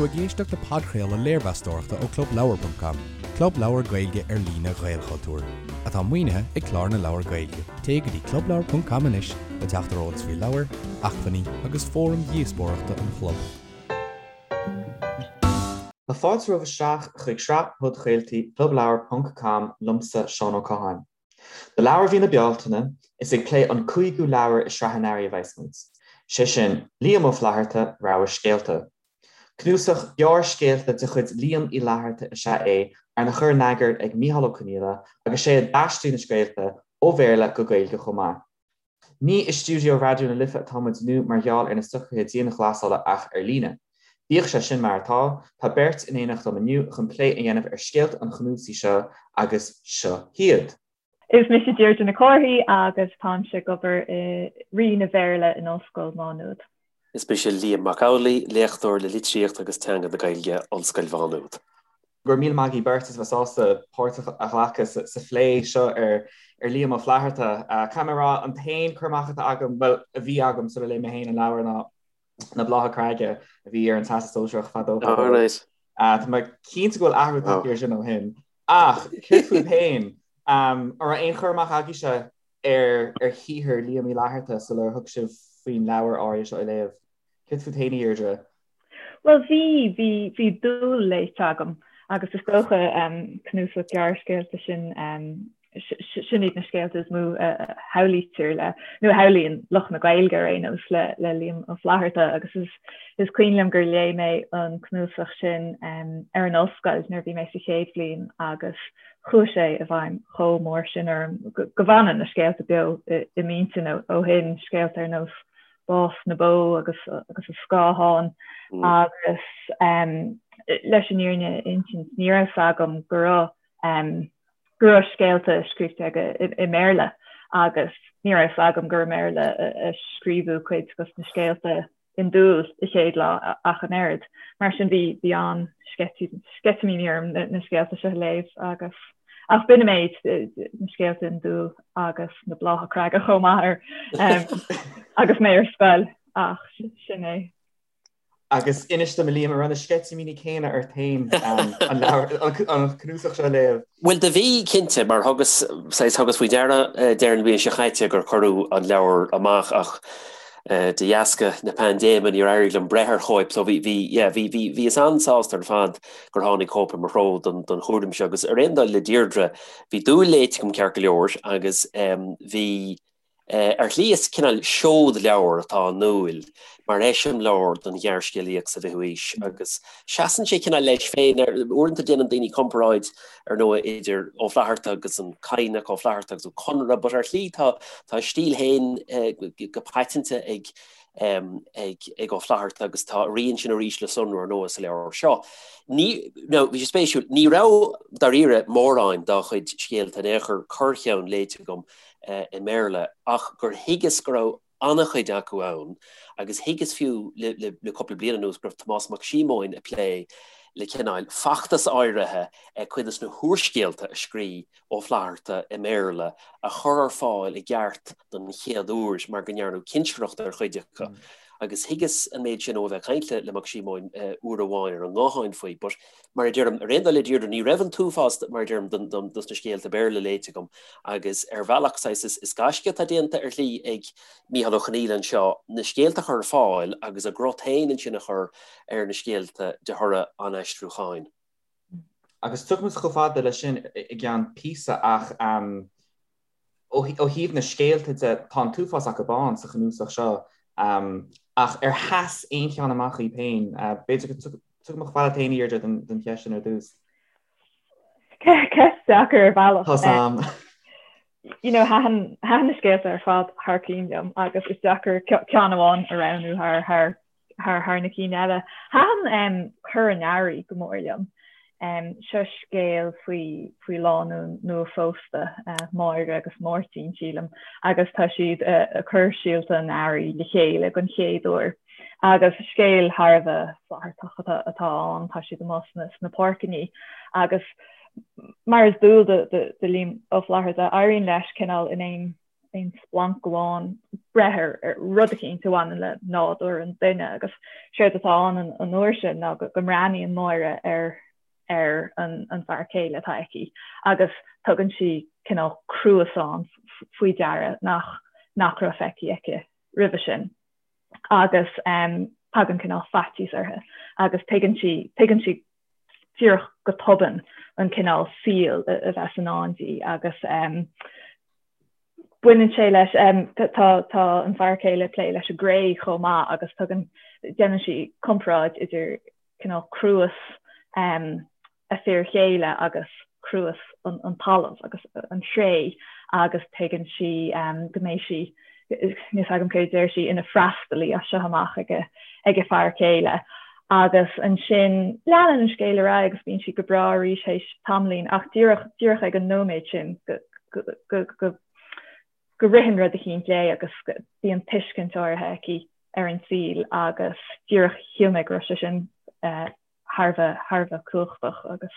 tú ag éisteacht le podchraoladh léirmheastóireachta ó ClubLeabhar.com, club leabhar Gaeilge ar líne Ghaelchultúir, atá maoinithe ag Clár na Leabhar Gaeilge. Téigh go dtí ClubLeabhar.com anois le teacht ar eolas faoi leabhair, acmhainní agus fóraim dhíospóireachta an chlub. Tá fáilte romhaibh isteach chuig sraith podchraoltaí ClubLeabhar ponc com liomsa, Seán Ó Catháin. Do leabhar mhí na Bealtaine, is ag plé an cúigiú leabhar i sraith an earraigh a bheas muid, sé sin, Liam Ó Flaithearta, Rogha Scéalta. Cnuasach gearrscéalta de chuid Liam Uí Fhlaithearta is ea é, arna chur in eagar ag Mícheál Ó Conghaile agus sé a d'aistrigh na scéalta ó Bhéarla go Gaeilge chomh maith. Ní i stiúideo Raidió na Life atá muid inniu mar gheall ar na socruithe dianghlasála ach ar líne. Bíodh sé sin mar atá, tá beirt in éineacht liom inniu chun plé a dhéanamh ar scéalta an chnuasaigh seo agus seo hiad. Is mise Deirdre Nic Cárthaigh agus táimse ag obair i Roinn an Bhéarla in Ollscoil Mhá Nuad. Is mise Liam Mac Amhlaigh, léachtóir le Litríocht agus Teanga na Gaeilge, Ollscoil Mhá Nuad. Go raibh míle maith agaibh beirt as a bheith sásta páirt a ghlacadh sa phlé seo ar Liam Ó Flaithearta. Caithfidh mé a rá, an t-aon cur amach atá agam, bhuel, a bhí agam sula léigh mé féin an leabhar ná Na Blátha Creige a bhí ar an Teastas Sóisearach fadó fadó. Tá mé cinnte go bhfuil athrú tagtha air sin ó shin. Ach céard fúibh féin? An raibh aon chur amach agaibhse ar shaothar Liam Uí Fhlaithearta sular thug sibh faoin leabhar áirithe seo a léamh? Céard fút féin, a Dheirdre? Bhuel bhí, bhí, bhí Dúil léite agam agus is dócha cnuasach gearrscéalta sin, sin iad na scéalta is mó a shamhlaítear le, nó a shamhlaíonn lucht na Gaeilge ar aon nós le, le Liam Ó Flaithearta agus is, is cuimhin liom gur léigh mé an cnuasach sin ar an ollscoil nuair a bhí mé sa chéad bhliain agus chuaigh sé i bhfeidhm chomh mór sin orm go bhfanann na scéalta beo i m'intinn ó shin, scéalta ar nós Bás na Bó agus agus an Scáthán agus leis an fhírinne a insint ní raibh 's agam go raibh go raibh scéalta scríofa aige i mBéarla agus ní raibh 's agam gur i mBéarla a scríobhadh cuid dos na scéalta in Dúil a chéad lá ach an oiread. Mar sin bhí bhí an-sceitimíní orm na scéalta seo a léamh agus Ach b'in an méid, na scéalta in Dúil agus na Blátha Creige chomh maith ar agus mé ar scoil ach sin é. Agus inis dom a Liam, an raibh na sceitimíní céanna ort féin an leabhar, an cnuasach seo a léamh? Bhuel do bhí, cinnte, mar thugas, saghas, thugas faoi deara deireadh na bliana seo chaite gur cuireadh an leabhar amach ach de dheasca na paindéime níor éirigh liom breith ar chóip so bhí, bhí, yeah, bhí, bhí, bhíos an-sásta ar fad gur tháinig cóip i mo threo don chúram seo agus ar aon dul le Deirdre, bhí Dúil léite agam ceart go leor agus bhí, ar shlí is cineál seod-leabhar atá i nDúil mar eiseamláir don ghearrscéalaíocht sa bhfichiú haois agus seasann sé cineál leis féin. Uaireanta déanann daoine comparáid ar ndóigh idir Ó Flaithearta agus an Cadhnach, Ó Flaithearta agus Ó Conaire but ar shlí tá a stíl féin go paiteanta ag ag Ó Flaithearta agus tá a rian sin arís le sonrú ar ndóigh sa leabhar seo. Ní, now, bhí sé spéisiúil, ní raibh dáiríre mórán dá chuid scéalta in aon chor corrcheann léite agam i mBéarla ach gur thuigeas go raibh an-chuid acu ann agus thuigeas fiú le cúpla bliain anuas go raibh Tomás Mac Síomóin ag plé le cineál feachtas áirithe cuid de na húrscéalta a scrígh Ó Flaithearta i mBéarla a chur ar fáil i gceart don chéad uair mar go ndearnadh cinsireacht ar chuid acu agus thuigeas an méid sin ó a bheith ag caint le Mac Síomóin uair amháin ar an nguthán faoi. But mar a deirim, ar aon dul le Deirdre, ní raibh an t-uafás, mar a deirim, dos na scéalta Béarla léite agam agus ar bhealach saghas is gaisce atá déanta ar shlí ag Mícheál Ó Conghaile anseo na scéalta a chur ar fáil agus a gcrot féin ansin a chur ar na scéalta de thoradh an aistriúcháin. Agus tiocfaidh muid chomh fada leis sin i gceann píosa ach ó thaobh na scéalta de, tá an t-uafás acu ann sa chnuasach seo ach ar sheas aon cheann amach dhaoibh féin? B'fhéidir go dtiocfaidh mé chomh fada leat féin, a Dheirdre, don cheist sin ar dtús. Ceist deacair ar bhealach. Tá sam. You know, thaitin na scéalta ar fad thar cinn liom agus is deacair ceann amháin a roghnú thar thar thar thar na cinn eile. Thaitin Cur an Earraigh go mór liom. Seo scéal faoi faoi lánúin nua-phósta, Máire agus Máirtín, sílim, agus tá siad ag cur síolta an earraigh le chéile don chéad uair. Agus scéal thar a bheith Flaitheartach atá ann, tá siad amuigh sna sna páirceanna agus mar is dual do do Liam Ó Flaithearta, éiríonn leis cineál in aon. aon splanc amháin breith ar rud eicínt a bhaineann le nádúr an duine agus séard atá ann an uair sin ná go mbreathnaíonn Máire ar ar an bhfear céile atá aici agus tugann sí cineál cruasán faoi deara nach nach raibh feicthe aici roimhe sin agus tagann cineál faitíos uirthi agus tuigeann sí tuigeann sí díreach go tobann an cineál saoil a bheas i ndán di agus baineann sé leis, tá tá an fear céile ag plé leis an gcré chomh maith agus tugann, déanann sí comparáid idir cineál cruas a fir chéile agus cruas an talamh agus an chré agus tuigeann sí go mbeidh sí níl fhios agam céard a deir sí, ina freastalaí as seo amach ag a fear céile. Agus ansin leanann an scéal ar aghaidh agus bíonn sí go breá arís théis tamaillín ach díreach, díreach ag an nóiméad sin go, go, go, go ritheann rud eicínt léi agus bíonn tuiscint áirithe aici ar an saol agus díreach shíl mé go raibh sé sin thar a bheith, thar a bheith cumhachtach agus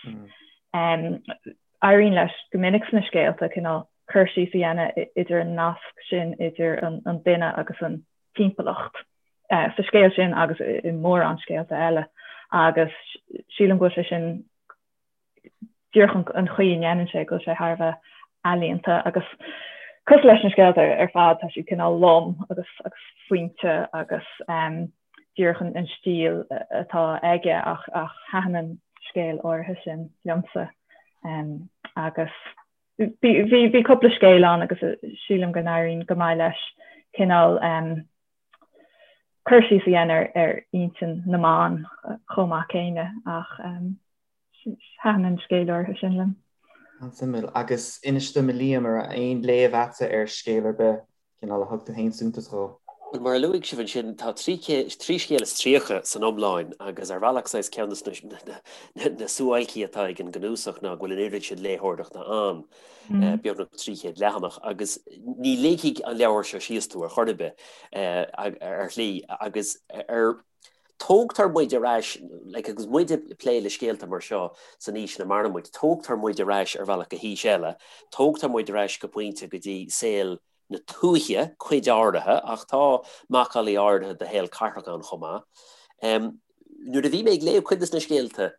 éiríonn leis go minic sna scéalta cineál cur síos a dhéanamh idir an nasc sin idir an duine agus an timpeallacht sa scéal sin agus i mórán scéalta eile agus sílim go bhfuil sé sin díreach an chaoi a ndéanann sé go bhfuil sé thar a bheith ealaíonta agus cosúil leis na scéalta ar fad tá siad cineál lom agus agus fuinte agus díreach an stíl atá aige ach ach thaitin an scéal áirithe sin liomsa agus bhí bhí cúpla scéal ann agus sílim go n-éiríonn go maith leis cineál cur síos a dhéanamh ar intinn na mban chomh maith céanna ach thaitin an scéal áirithe sin liom. An-suimiúil. Agus inis dom a Liam, an raibh aon léamh a'dsa ar scéal ar bith, cineál a thug tú féin suntas dhó? Bhuel, mar a luaigh sibh ansin, tá 33 scéal san iomlán agus ar bhealach saghas ceann de na suáilcí atá ag an gcnuasach ná go bhfuil an oiread sin léitheoireachta ann, beagnach 300 leathanach, agus ní ligfidh an leabhar seo síos tú ar chor ar bith, ar shlí, agus ar Tógtar muid ar ais, like, agus muid ag plé le scéalta mar seo san aois ina maireann muid, tógtar muid ar ais ar bhealach go haois eile, tógtar muid ar ais go pointe go dtí saol na tuaithe, cuid áirithe, ach tá macallaí áirithe de shaol cathrach ann chomh maith. Nuair a bhí mé ag léamh cuid de na scéalta,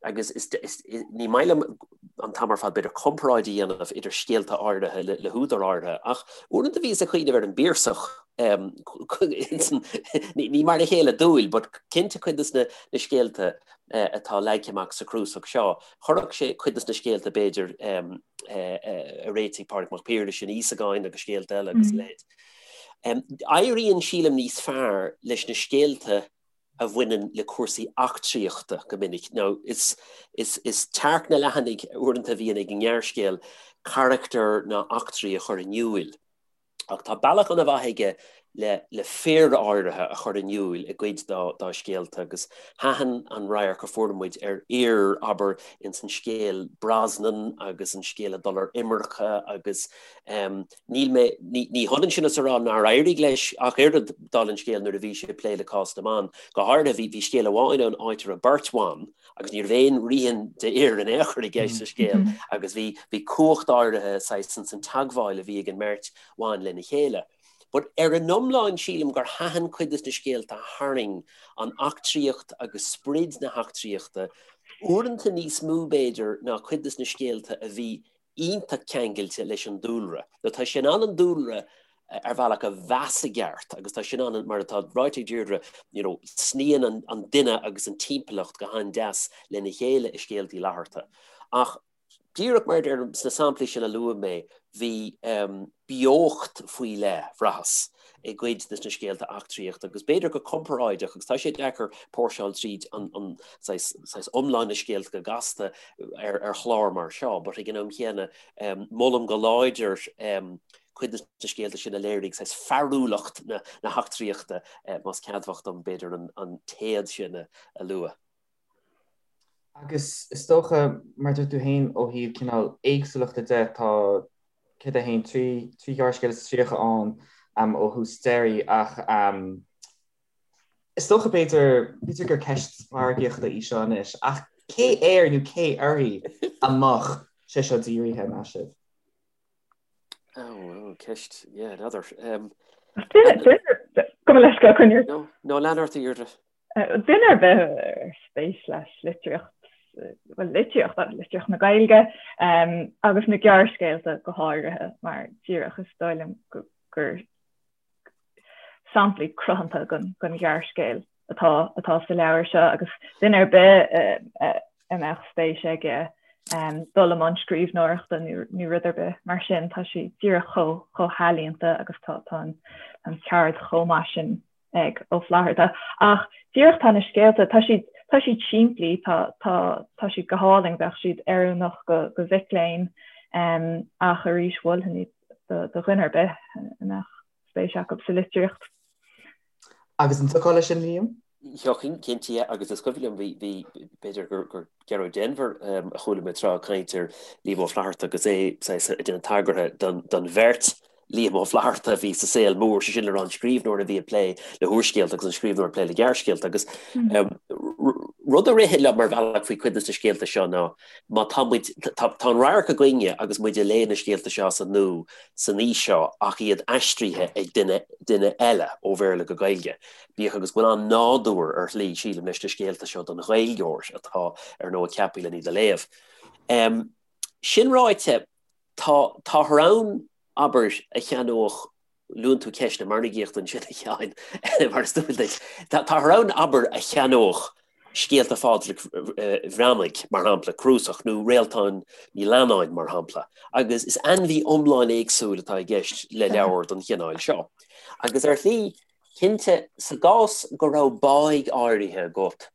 agus is, is, ní maith liom an t-am ar fad b'fhéidir comparáid a dhéanamh idir scéalta áirithe le, le húdair áirithe, ach uaireanta bhíos ag cuimhneamh ar an bPiarsach, ní, ní mar a chéile dúil, but cinnte cuid de na, na scéalta atá leagtha amach sa chnuasach seo, chuirfeadh sé cuid de na scéalta b'fhéidir a réitigh Pádraig Mac Piarais in Íosagáin agus scéalta eile agus a leithéid. Éiríonn, sílim, níos fearr leis na scéalta a bhaineann le cúrsaí eachtraíochta go minic. Now, is, is, is tearc na leathanaigh uaireanta a bhíonn ag an ngearrscéal carachtair ná eachtraí a chur in iúil. Ach tá bealach an-mhaith aige le, le fir áirithe a chur in iúil i gcuid dá, dá scéalta agus thaitin an radharc a fuair muid ar fhir, abair, ins an scéal Brosnan agus an scéal ag dul ar imirce agus Níl mé, ní hionann sin is a rá nár éirigh leis ach oiread, dála an scéil nuair a bhí sé ag plé le cás na mban. Go háirithe, bhí, bhí scéal amháin ann áit a raibh beirt bhan agus ní raibh aon rian d'fhir in aon chor i gceist sa scéal agus bhí, bhí cumhacht áirithe saghas ins an teagmháil a bhí ag an mbeirt bhan lena chéile. But ar an iomlán sílim gur thaitin cuid de na scéalta a tharraing an eachtraíocht agus sprid na heachtraíochta, uaireanta níos mó b'fhéidir ná cuid de na scéalta a bhí iontach ceangailte leis an dúlra. Nó tá sé in ann an dúlra ar bhealach a mheas i gceart agus tá sé in ann, mar atá ráite ag Deirdre, you know, sníonn an, an duine agus an timpeallacht go han-deas lena chéile i scéalta Uí Fhlatharta. Ach díreach mar a deirim, sna samplaí sin a luaigh mé, bhí um, beocht faoi leith, bhraitheas, i gcuid de na scéalta eachtraíochta agus b'fhéidir go comparáideach, agus tá sé deacair póirseáil tríd an, an saghas, saghas iomlán na scéalta go gasta ar, ar chlár mar seo, but ag an am chéanna um, molaim go láidir um, cuid de na scéalta sin a léirigh saghas fearúlacht na, na heachtraíochta, eh, más ceadmhach dom b'fhéidir an, an téad sin a, a lua. Agus is dócha, mar a dúirt tú féin, ó thaobh cineál éagsúlachta de, tá céard é féin, 3 ghearrscéal is 30 ann ó thús deiridh ach is dócha b'fhéidir, b'fhéidir gur ceist mhargaíochta í seo anois, ach cé air nó cé uirthi a mbeadh sé seo dírithe, meas sibh? Oh, ceist, yeah, n'fheadar. Gabh mo leithscéal, coinnigh. No, no, lean ort a Dheirdre. Duine ar bith ar spéis leis litríocht, bhuel litríocht, litríocht na Gaeilge agus na gearrscéalta go háirithe mar díreach is dóigh liom gur samplaí cruthanta den ghearrscéal atá atá sa leabhar seo agus duine ar bith a mbeadh spéis aige dul i mbun scríbhneoireachta nó rud ar bith mar sin tá sé díreach chomh chomh healaíonta agus tá tá an cheird chomh maith sin ag Ó Flaithearta. Ach díreach tá na scéalta, tá siad, tá siad simplí, tá, tá, tá siad go hálainn, bheadh siad oiriúnach go, go mhic léinn ach arís mholfainn iad do, do dhuine ar bith a mbeadh spéis acu sa litríocht. Agus an dtiocfá leis sin, Liam? Thiocfainn, cinnte, agus is cuimhin liom, bhí, bhí, b'fhéidir gur, gur Gearóid Denvir a chuala mé tráth ag caint ar Liam Ó Flaithearta agus é saghas ag déanamh tagartha don, don bheirt Liam Ó Flaithearta a bhí sa saol mór, sé sin le rá an scríbhneoir a bhí ag plé le húrscéalta agus an scríbhneoir ag plé le gearrscéalta agus rud a ritheann liom ar bhealach faoi chuid de na scéalta seo ná má tá muid, tá, tá an radharc againne agus muid ag léamh na scéalta seo as an nua san aois seo ach iad aistrithe ag duine, duine eile ó Bhéarla go Gaeilge. Bíodh agus go bhfuil an-nádúr ar shlí, sílim, leis na scéalta seo don Ghaeilgeoir atá, ar ndóigh, ceaptha len iad a léamh. Sin ráite, tá, táthar ann, abair, a cheannódh, luann tú ceist na margaíochta ansin, a Sheáin, mar is dual duit, táthar ann, abair, a cheannódh scéalta Phádraic Bhreathnaigh, mar shampla, cnuasach, nó Réaltán Ní Leannáin, mar shampla, agus is ainmhí iomlán éagsúil atá i gceist le leabhar den chineál seo. Agus ar shlí, Cinnte, sa gcás go raibh báidh áirithe agat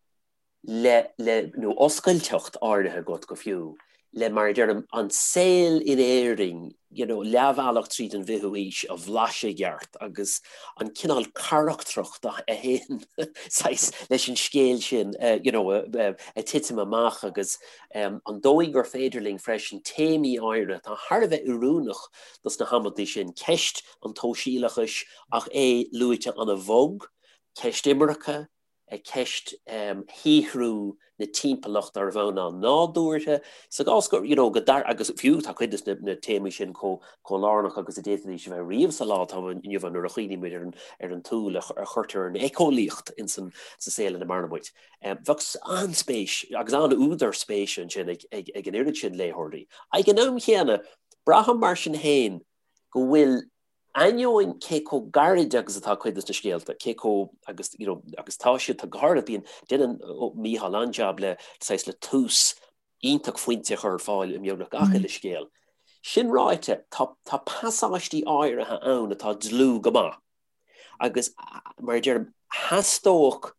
le, le, nó oscailteacht áirithe agat go fiú, le, mar a deirim, an saol in Éirinn, you know, leathbhealach tríd an bhfichiú haois a bhlaiseadh i gceart agus an cineál carachtracht a théann saghas leis an scéal sin, you know, a titim amach agus an dóigh gur féidir linn freisin téamaí áirithe atá thar a bheith oiriúnach dos na hamantaí sin, ceist an tsóisialachais ach é luaite an-bhog, ceist imirce, ceist shaothrú na timpeallachta ar bhonn an-nádúrtha, sa gcás go, you know, go dtar, agus fiú tá cuid de na téamaí sin chomh lárnach agus a d'fhéadfaidís a bheith riamh sa lá atá inniu ann nuair a chuimhnímid ar an, ar an tsúil a chuirtear ar an éiceolaíocht in san, sa saol ina maireann muid. Bheadh an-spéis agus an-údar spéise ansin ag, ag, ag an oiread sin léitheoirí. Ag an am chéanna, braithim mar sin féin go bhfuil ainneoin cé chomh gairid agus atá cuid de na scéalta, cé chomh, agus, you know, agus tá siad, tá go háirithe, bíonn, déanann Mícheál an-jab le, saghas, le tús iontach fuinte a chur ar fáil i mbeagnach gach uile scéal. Sin ráite, tá, tá pasáistí áirithe ann atá dlúth go maith. Agus, mar a deirim, theastódh,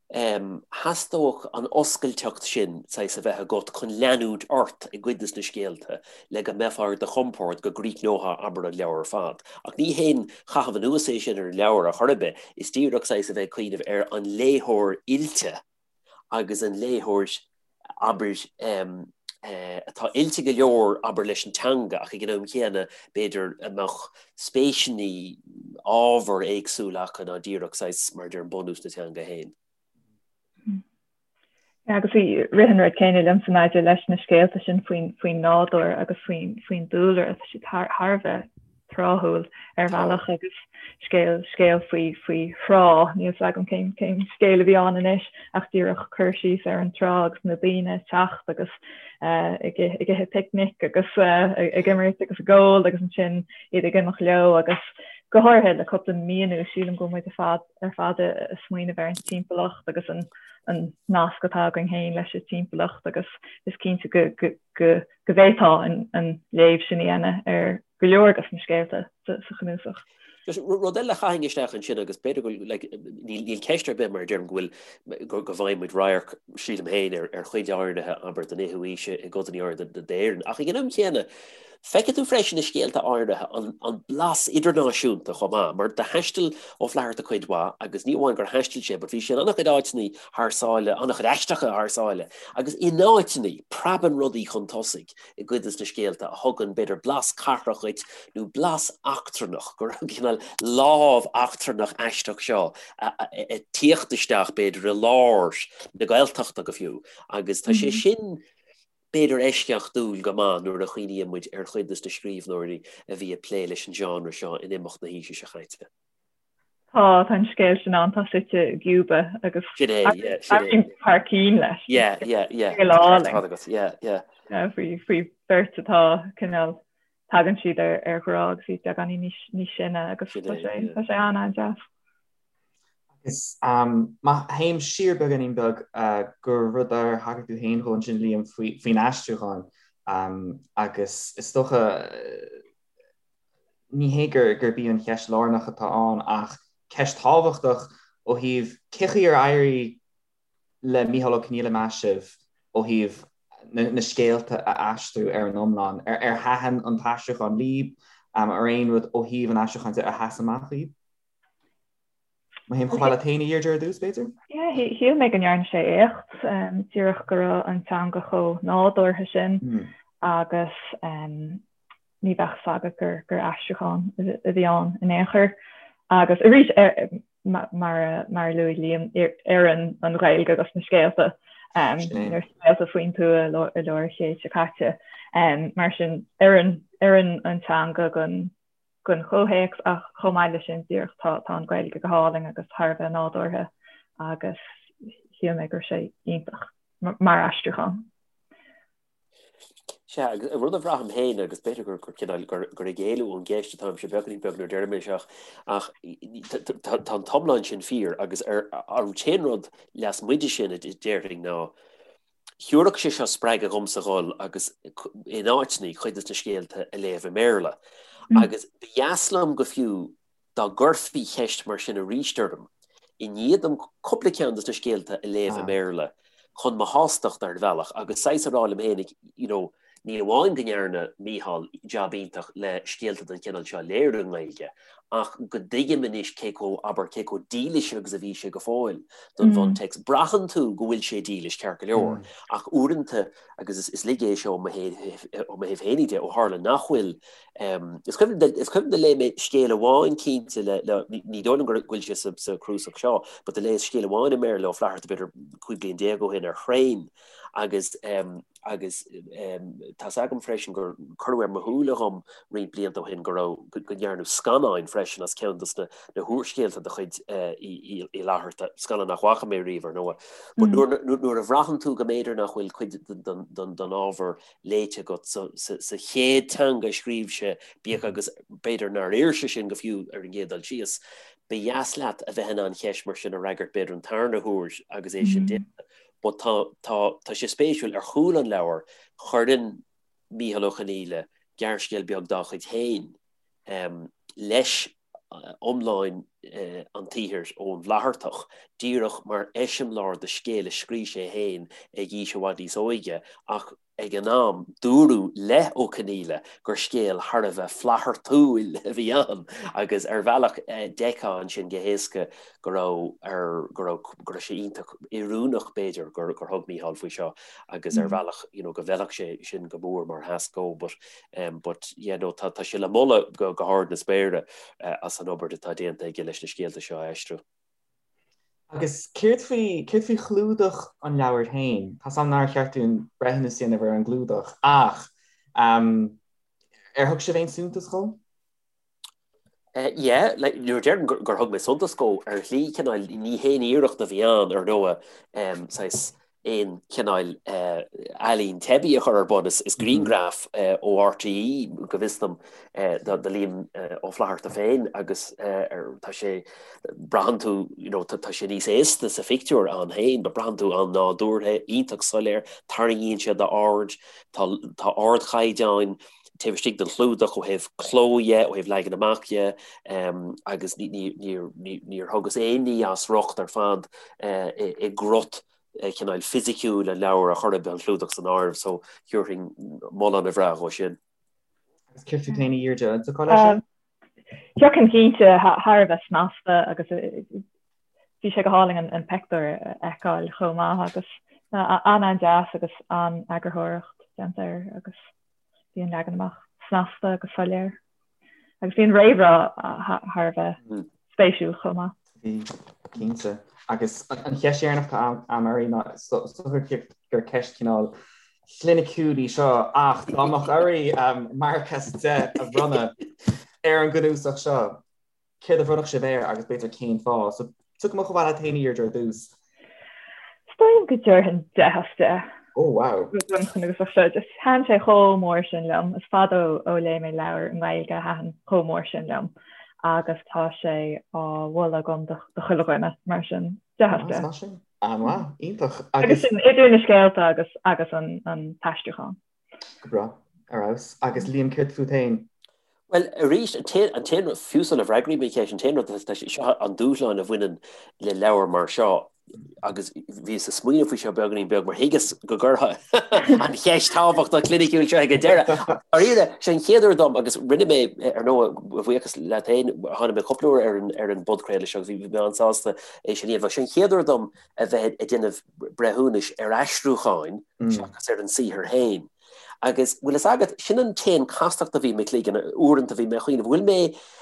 theastódh an oscailteacht sin, saghas, a bheith agat chun leanúint ort i gcuid de na scéalta le go mbeifeá ar do chompord go gcríochnófá, abair, an leabhar ar fad. Ach ní haon chaitheamh anuas é sin ar an leabhar ar chor ar bith, is díreach, saghas, a bheith ag cuimhneamh ar an léitheoir oilte agus an léitheoir, abair, atá oilte go leor, abair, leis an teanga ach ag an am chéanna, b'fhéidir, a mbeadh spéiseanna, ábhair éagsúla acu ná díreach, saghas, mar a deirim, bunús na teanga féin. Agus rith an rud céanna liomsa maidir leis na scéalta sin faoin, faoin nádúr agus faoin, faoin dúlra, tá siad thar, thar a bheith tráthúil ar bhealach agus scéal scéal faoi faoi thrá, níl 's agam cén cén scéal a bhí ann anois ach díreach cur síos ar an trá agus na daoine ag teacht agus ag ag ithe picnic agus ag imirt agus ag ól agus ansin iad ag imeacht leo agus go háirithe le cúpla mí anuas sílim go bhfuil muid ar fad ar fad ag smaoineamh ar an timpeallacht agus an an nasc atá againn féin leis an timpeallacht agus is cinnte go go go go bhféadfá an léamh sin a dhéanamh ar go leor de na scéalta sa chnuasach. Just rud eile a chaithfinn isteach ansin agus b'fhéidir go bhfuil, like, níl, níl ceist ar bith mar a deirim go bhfuil, go, go bhfaigheann muid radharc, sílim féin, ar, ar chuid áirithe, abair, den fhichiú haois i gcodanna áirithe d'Éirinn. Ach ag an am chéanna, feicfidh tú freisin i scéalta áirithe an, an blas idirnáisiúnta chomh maith, mar do thaistil Ó Flaithearta cuid mhaith agus ní amháin gur thaistil sé, but bhí sé in an-chuid áiteanna thar sáile, an-chuid aisteacha thar sáile, agus in áiteanna, preabann rudaí chun tosaigh. i gcuid de na scéalta a thugann, b'fhéidir, blas cathrach dhuit nó blas eachtrannach, go raibh cineál lámh eachtrannach aisteach seo ag tíocht isteach, b'fhéidir, i lár na Gaeltachta go fiú. Agus tá sé sin. b'fhéidir eisceachtúil go maith nuair a chuimhníonn muid ar chuid de na scríbhneoirí a bhí ag plé leis an genre seo in imeacht na haoise seo caite. Tá, tá an scéal sin ann, tá suite i gCuba agus Sin é, yeah, sin é. thar cinn leis. Yeah, yeah, yeah. Scéal álainn. Tá agat, yeah, yeah. Yeah, faoi, faoi bheirt atá cineál, tagann siad ar, ar ghrá agus iad beagáinín níos, níos sine agus Sin tá é, sé, yeah. tá sé an-an-deas. Agus má théim siar beagáinín beag go rud ar thagair tú féin dhó ansin Liam faoin aistriúchán agus is dócha ní hé gurb í an cheist lárnach atá ann ach ceist thábhachtach ó thaobh cé chaoi ar éirigh le Mícheál Ó Conghaile meas sibh ó thaobh na scéalta a aistriú ar an iomlán? Ar thaitin an t-aistriúchán libh? Ar aon rud ó thaobh an aistriúcháin de a sheas amach dhaoibh? Má théim chomh fada leat féin a Dheirdre ar dtús, b'fhéidir? Yeah, shíl mé go ndearna sé éacht, díreach go raibh an teanga chomh nádúrtha sin agus ní bheadh fhios agat gur gur aistriúchán a bhí ann in aon chor. Agus arís, mar a luaigh Liam, oireann an Ghaeilge dos na scéalta, na scéalta faoin tuath i lár an chéid seo caite. Mar sin, oireann oireann an teanga don don chomhthéacs ach chomh maith leis sin díreach tá tá an Ghaeilge go hálainn agus thar a bheith nádúrtha agus shíl mé go raibh sé iontach mar aistriúchán. Sea, agus rud a bhraithim féin, agus b'fhéidir gur gur cineál gur gur ag éalú ón gceist atáimse beagáinín beag nuair a deirim é seo, ach tá tá an t-iomlán sin fíor agus ar an t-aon rud lasmuigh de sin a déarfainn ná Thabharfadh sé seo spreagadh dhomsa dhul agus in áiteanna cuid de na scéalta a léamh i mBéarla. Agus ba dheas liom go fiú dá gcuirfí ceist mar sin arís orm, i ndiaidh dom cúpla ceann de na scéalta a léamh i mBéarla, chun mo shástacht ar bhealach agus saghas a rá liom féinig, you know, ní amháin go ndearna Mícheál jab iontach le scéalta den chineál seo a léiriú i nGaeilge, ach go dtuigim anois cé chomh, abair, cé chomh dílis agus a bhí sé go fóill don bhuntéacs. Braitheann tú go bhfuil sé dílis, ceart go leor, ach uaireanta, agus is laige é seo ó mo thaobh féinig de, ó tharla nach bhfuil, is cuimhin, is cuimhin do léigh mé scéal amháin cinnte le, le, ní dóigh liom go bhfuil sé sa, sa chnuasach seo, but do léas scéal amháin i mBéarla le Ó Flaithearta b'fhéidir 15 bliain ó shin ar thraein agus agus tá's agam freisin gur cuireadh ar mo shúile dhom roinnt blianta ó shin go raibh, go ndearnadh scannáin freisin as ceann dos na húrscéalta de chuid Uí Fhlaithearta, scannán nach bhfaca mé riamh ar ndóigh. But nuair a bhraitheann tú go mb'fhéidir nach bhfuil cuid den ábhar léite agat sa chéad teanga a scríobh sé, bíodh agus b'fhéidir nár oir sé sin go fiú ar an gcéad dul síos, ba dheas leat a bheith in ann ceist mar sin a fhreagairt b'fhéidir an tarna huair agus é sin déanta. But tá, tá, tá sé spéisiúil, ar chúl an leabhair, cuireann Mícheál Ó Conghaile gearrscéal beag dá chuid féin leis iomlán an tsaothair ón bhFlaitheartach, díreach mar eiseamláir de scéal a scrígh sé féin ag aois i bhfad níos óige ach Ag an am, dúradh le Ó Conghaile gur scéal thar a bheith Flaitheartúil a bhí ann agus ar bhealach d'fheicfeá ansin go héasca go raibh ar go raibh go raibh sé iontach oiriúnach b'fhéidir gur gur thug Mícheál faoi seo agus ar bhealach you know go bhfeilfeadh sé sin go mór mar thasc dó but um but yeah no tá tá sé le moladh go go hard na spéire as an obair atá déanta aige leis na scéalta seo a aistriú. Agus céard faoi, céard faoi chlúdach an leabhair féin? Tá's a'm nár cheart dúinn breithiúnas a dhéanamh ar an gclúdach, ach ar thug sibh aon suntas dhó? Yeah, like, nuair a deirim gur thug mé suntas dhó, ar shlí, cineál, ní haon iarracht a bhí ann, ar ndóigh, saghas, aon chineál ealaín teibí a chur ar bun. Is grianghraf ó RTÉ, go bhfios dom, de Liam Ó Flaithearta féin agus tá sé, braitheann tú, you know, tá sé níos aosta sa phictiúr ann féin, but braitheann tú an-nádúrtha, iontach soiléir, tarraingíonn sé d'aird, tá tá ardchaighdeáin taobh istigh den chlúdach ó thaobh cló dhe, ó thaobh leagan amach dhe, agus níor thugas aon ní as riocht ar fad i gcrut cineál fisiciúil an leabhair ar chor ar bith, an clúdach san áireamh, so thabharfainn moladh ana-bhreá dhó sin. Agus céard fút féin a Dheirdre, an dtiocfá leis sin? Thiocfainn cinnte, thar a bheith snasta agus bhí sé go hálainn an pictiúr a fheiceáil chomh maith agus an-an-deas agus an-eagarthóireacht déanta air agus bhí an leagan amach snasta agus soiléir. Agus bhí an réamhrá thar a bheith spéisiúil chomh maith. Bhí, cinnte. Agus an cheist dheireanach atá a'm oraibh ná is dócha gur ceist cineál. chliniciúil í seo ach dá mbeadh oraibh marc as 10 a bhronnadh ar an gcnuasach seo, céard a bhronnfadh sibh air agus b'fhéidir cén fáth? So tiocfaidh mé chomh fada leat féin a Dheirdre ar dtús. Is dóigh liom go dtabharfainn 10 as 10. Oh wow. Don chnuasach seo. Just thaitin sé chomh mór sin liom. Is fada ó léigh mé leabhar i nGaeilge a thaitin chomh mór sin liom agus tá sé á mholadh agam do chuile dhuine mar sin 10 as 10. Smashing. An-mhaith, iontach. Agus sin idir na scéalta agus agus an an t-aistriúchán. Go breá, ar fheabhas. Agus Liam, céard fút féin? Bhuel, arís, an t-aon rud, fiú sula bhfreagraím an cheist, an t-aon rud, tá sé, seo an dúshlán a bhaineann le leabhar mar seo, agus bhíos ag smaoineamh faoi seo beagáinín beag mar thuigeas go gcuirfeá an cheist thábhachtach chliniciúil seo ag an deireadh. Dáiríre, sé an chéad uair dom, agus rinne mé, ar ndóigh, a bhuíochas leat féin, tháinig mé cúpla uair ar an ar an bpodchraoladh seo agus bhí mé an-sásta é sin a dhéanamh. Sé an chéad uair dom a bheith ag déanamh breithiúnais ar aistriúcháin seachas ar an saothar féin. Agus, bhfuil fhios agat, sin an t-aon chastacht a bhí i mo chloigeann, uaireanta bhí mé ag cuimhneamh, bhfuil mé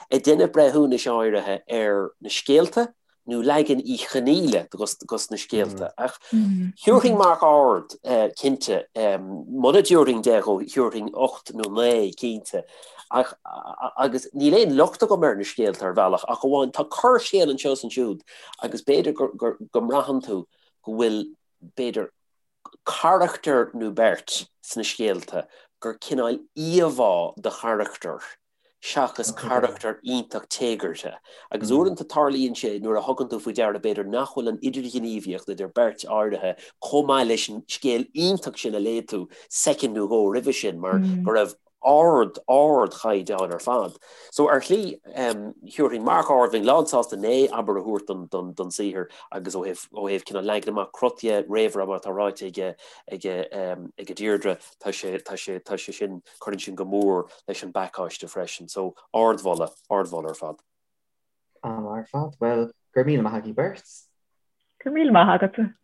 ag déanamh breithiúnais áirithe ar na scéalta nó leagan Uí Chonghaile dos na scéalta? Ach thiúrfainn marc ard, cinnte. Muna dtiúrfainn 10 dhó, thiúrfainn 8 nó 9, cinnte. Ach, agus níl aon locht agam ar na scéalta ar bhealach, ach amháin tá corrscéal anseo is ansiúd agus b'fhéidir go mbraitheann tú go bhfuil, b'fhéidir, carachtar nó beirt sna scéalta gur cineál íomhá de charachtar seachas carachtar iontach téagartha. Agus uaireanta tarlaíonn sé nuair a thugann tú faoi deara b'fhéidir nach bhfuil an idirghníomhaíocht idir beirt áirithe chomh maith leis an scéal iontach sin a léigh tú soicind nó dhó roimhe sin mar go raibh ard, ardchaighdeán ar fad. So ar shlí, thiúrfainn marc ard, bheinn lánsásta 9, abair, a thabhairt don, don, don saothar agus ó thaobh, ó thaobh cineál leagan amach cruth dhe, réamhrá mar atá ráite aige, aige, aige Deirdre, tá sé, tá sé, tá sé sin, cuireann sin go mór leis an bpacáiste freisin. So ardmholadh, ardmholadh ar fad. An-mhaith ar fad. Bhuel, go raibh míle maith agaibh beirt. Go raibh míle maith agatsa.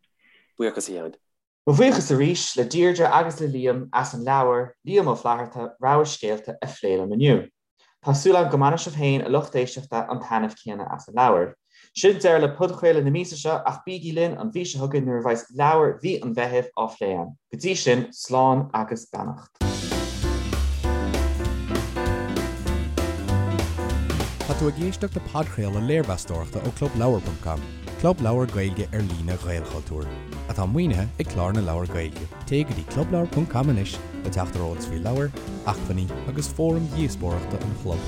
Buíochas a Sheáin. Mo bhuíochas arís le Deirdre agus le Liam as an leabhar, Liam Ó Flaithearta, Rogha Scéalta a phlé liom inniu. Tá súil agam go mbainfidh sibh féin, a lucht éisteachta, an taitneamh céanna as an leabhar. Sin deireadh le podchraoladh na míosa seo ach bígí linn an mhí seo chugainn nuair a bheas leabhar mhí an Mheithimh á phlé a'm. Go dtí sin, slán agus beannacht. Tá tú ag éisteacht le podchraoladh léirmheastóireachta ó ClubLeabhar.com, club leabhar Gaeilge ar líne Ghaelchultúir, atá maoinithe ag Clár na Leabhar Gaeilge. Téigh go dtí clubleabhar.com anois le teacht ar eolas faoi leabhair, acmhainní agus fóraim dhíospóireachta an chlub.